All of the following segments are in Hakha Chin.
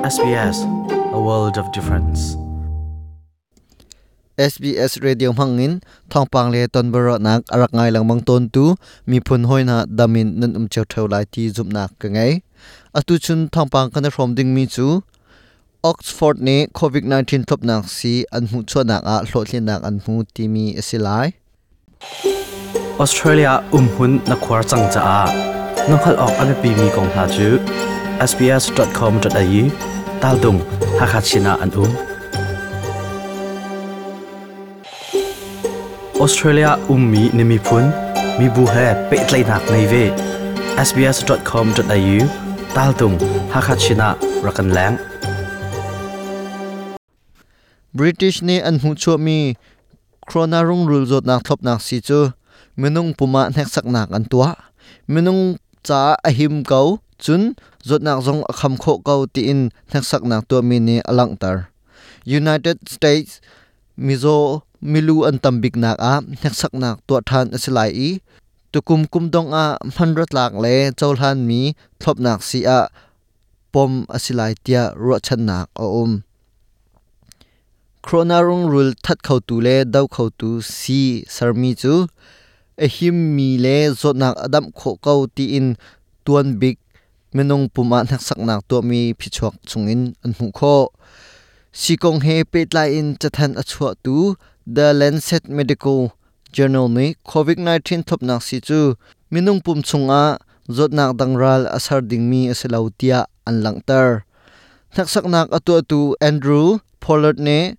SBS, a world of difference. SBS Radio hmangin thawngpang le tonbiaruahnak a rak ngai lengmang tawntu miphun hawi hna damin nan um cio ṭheo lai ti zumhnak ka ngei. Atu chun thawngpang kan i hrawm dingmi cu Oxford nih COVID-19 thlopnak sii an hmuhchuahnak ah hlawhtlinnak an hmu timi a si lai. Australia umhmun na khuar cang caah na hngalh awk a biapimi kong hna cu sbs.com.au taltung Hakha Chin ah an um. Australia ummi na miphun mibu he pehtlaihnak ngei ve. sbs.com.au taltung Hakha Chin ah rak kan leng. British nih an hmuhchuahmi Corona rungrul zawtnak thlopnak sii cu minung pum ah hneksaknak an tuah. Minung caah a him ko, cun zawtnak zong a kham khawh ko tiin hneksaknak tuahmi nih a langhter. United States mizaw milu an tam biknak ah hneksaknak tuah ṭhan a si lai i tukum kum dongh ah hmanratlak le cohlanmi thlopnak sii ah pom a si lai tiah ruahchannak a um. Corona rungrul that khotu le do khotu sii sermi cu a himmi le zawtnak a damh khawh ko tiin tuan bik minung pum ah hneksaknak tuahmi phichuak chungin an hmuh khawh. Sii kong he pehtlai in cathanh a chuahtu The Lancet Medical Journal nih COVID-19 thlopnak sii cu minung pum chungah zawtnak dang ral a ser dingmi a si lo tiah an langhter. Hneksaknak a tuahtu Andrew Pollard nih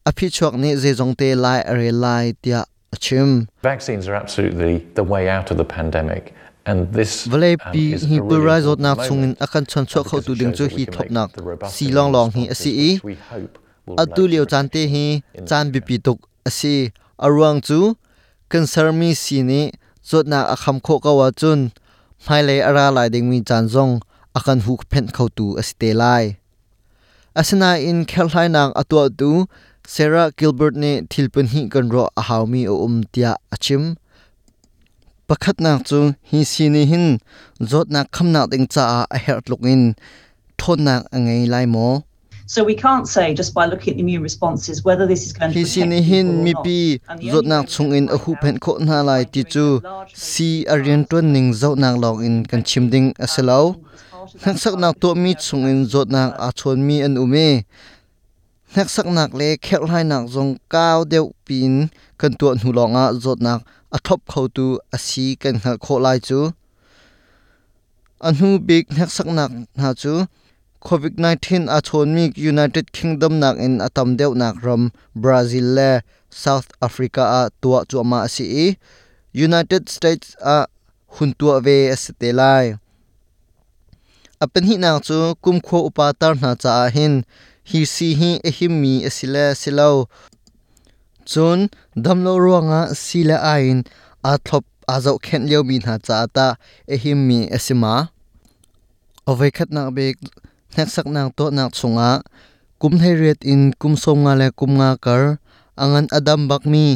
a phichuak nih zeizongte lai a rel lai tiah a chim. Vaccines are absolutely the way out of the pandemic. And this Vawleipi is hi a really pulrai important zawtnak chungin moment a kan chawnchuah because khotu it ding shows cu that we hi can make thlopnak the robust sii immune lawnglawng hi a responses si i which we hope will atu relate to lio caan te protection hi in the caan future. biapi tuk a si. A ruang cu kan sermi sii nih zawtnak a kham khawh ko ahcun hmailei a ra lai dingmi caan zong a kan huhphenh khotu a si te lai. Asinain kherhhlainak a tuahtu Sarah Gilbert nih thil pahnih kan ruah a haumi a um tiah a chim. Pakhatnak cu hi sii nih hin zawtnak khamnak ding caah a herh tluk in ṭhawnnak a ngei lai maw? So we can't say just by looking at the immune responses whether this is going to Hi sii protect nih hin people or not. mipi And the only zawtnak way we're going to chungin a find out huhphenh khawh hna is lai by ti doing cu a large phase sii 3 a trials rianṭuan ning zohnak lawngin kan chim ding a si lo. as part of that trial Hneksaknak we tuahmi have chungin zawtnak aa chawnmi an um i hneksaknak le kherhhlainak zong kau deuh piin kan tuah hnu lawngah zawtnak a thlop khotu a si kan hngalh khawh lai cu. A hnu bik hneksaknak hna cu COVID-19 aa chawnmi United Kingdom nakin a tam deuhnak ram Brazil le South Africa ah tuah cuahmah a si i United States ah hun tuah ve a si te lai. A pahnihnak cu kumkhua upa tar hna caah hin hi sii hi a himmi a si le si lo. Cun damlo ruangah sii le ai in aa thlop aa zohkhenh liomi hna caah tah a himmi a si ma? A voikhatnak bik hneksaknak tuahnak chungah kum 18 in kum 50 le kum 5 kar a ngan a dam bakmi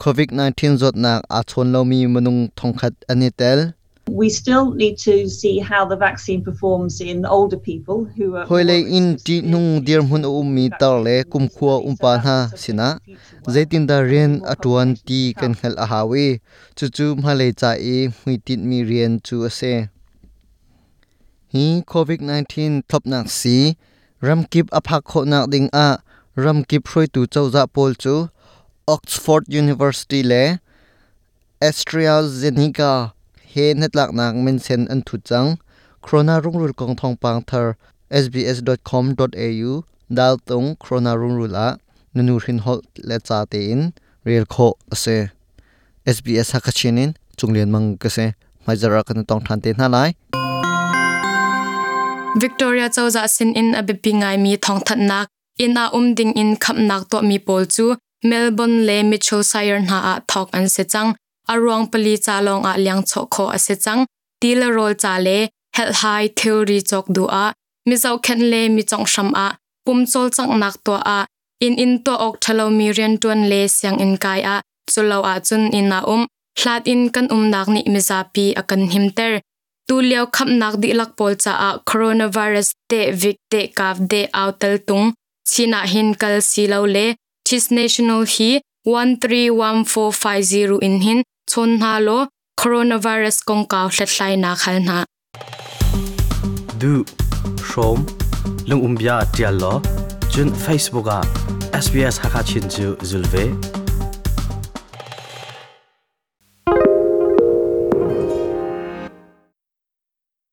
COVID-19 zawtnak aa chawn lomi minung 1,000 an i tel. We still need to see how the vaccine performs in older people who are more Hawilei at risk in of severe ṭihnung disease dirhmun a due to ummi the tar le vaccine kumkhua study. So umpa that's hna the subject sinah of future work. zeitindah There'll be rian more a ṭuan publications ti to kan come. hngalh a hau i cucu hmailei ca i hmuitinhmi rian cu a si. Hi COVID-19 thlopnak sii ramkip a phak khawhnak ding ah ramkip hruaitu cozah pawl cu Oxford University le AstraZeneca he hnatlaknak minsen an thut cang. Corona rungrul kong thawngpang thar sbs.com.au daltung corona rungrul ah nunu hrin holh le ca tein rel khawh a si. SBS Hakachin in Cunglian Mang ka si. Hmaizarh ah kan tong ṭhan te hna lai. Victoria cozah sinin a biapi ngaimi thawngthanhnak inn ah um ding in khamnak tuahmi pawl cu Melbourne le Mitchell Shire hna ah thawk an si cang. A ruang pali ca lawng ah liangchawh khawh a si cang. Ti le rawl ca le helhhai thilri cawk duh ah mizohkhenh le mi conghram ah pum cawlcanghnak tuah ah inn in tuah awk ṭhalomi rianṭuan le sianginn kai ah culo ahcun inn ah um hlat in kan umnak nih mizapi a kan himter. Tu lio khamnak dihlak pawl caah coronavirus te vik te kav de au tel tung China hin kal si lo le Chis National hi 131450 in hin chon hna law coronavirus kongkau hlathlainak hal hna. Du hrawm lungumbia tial law cun Facebook ah SBS Hakachin cu zul ve.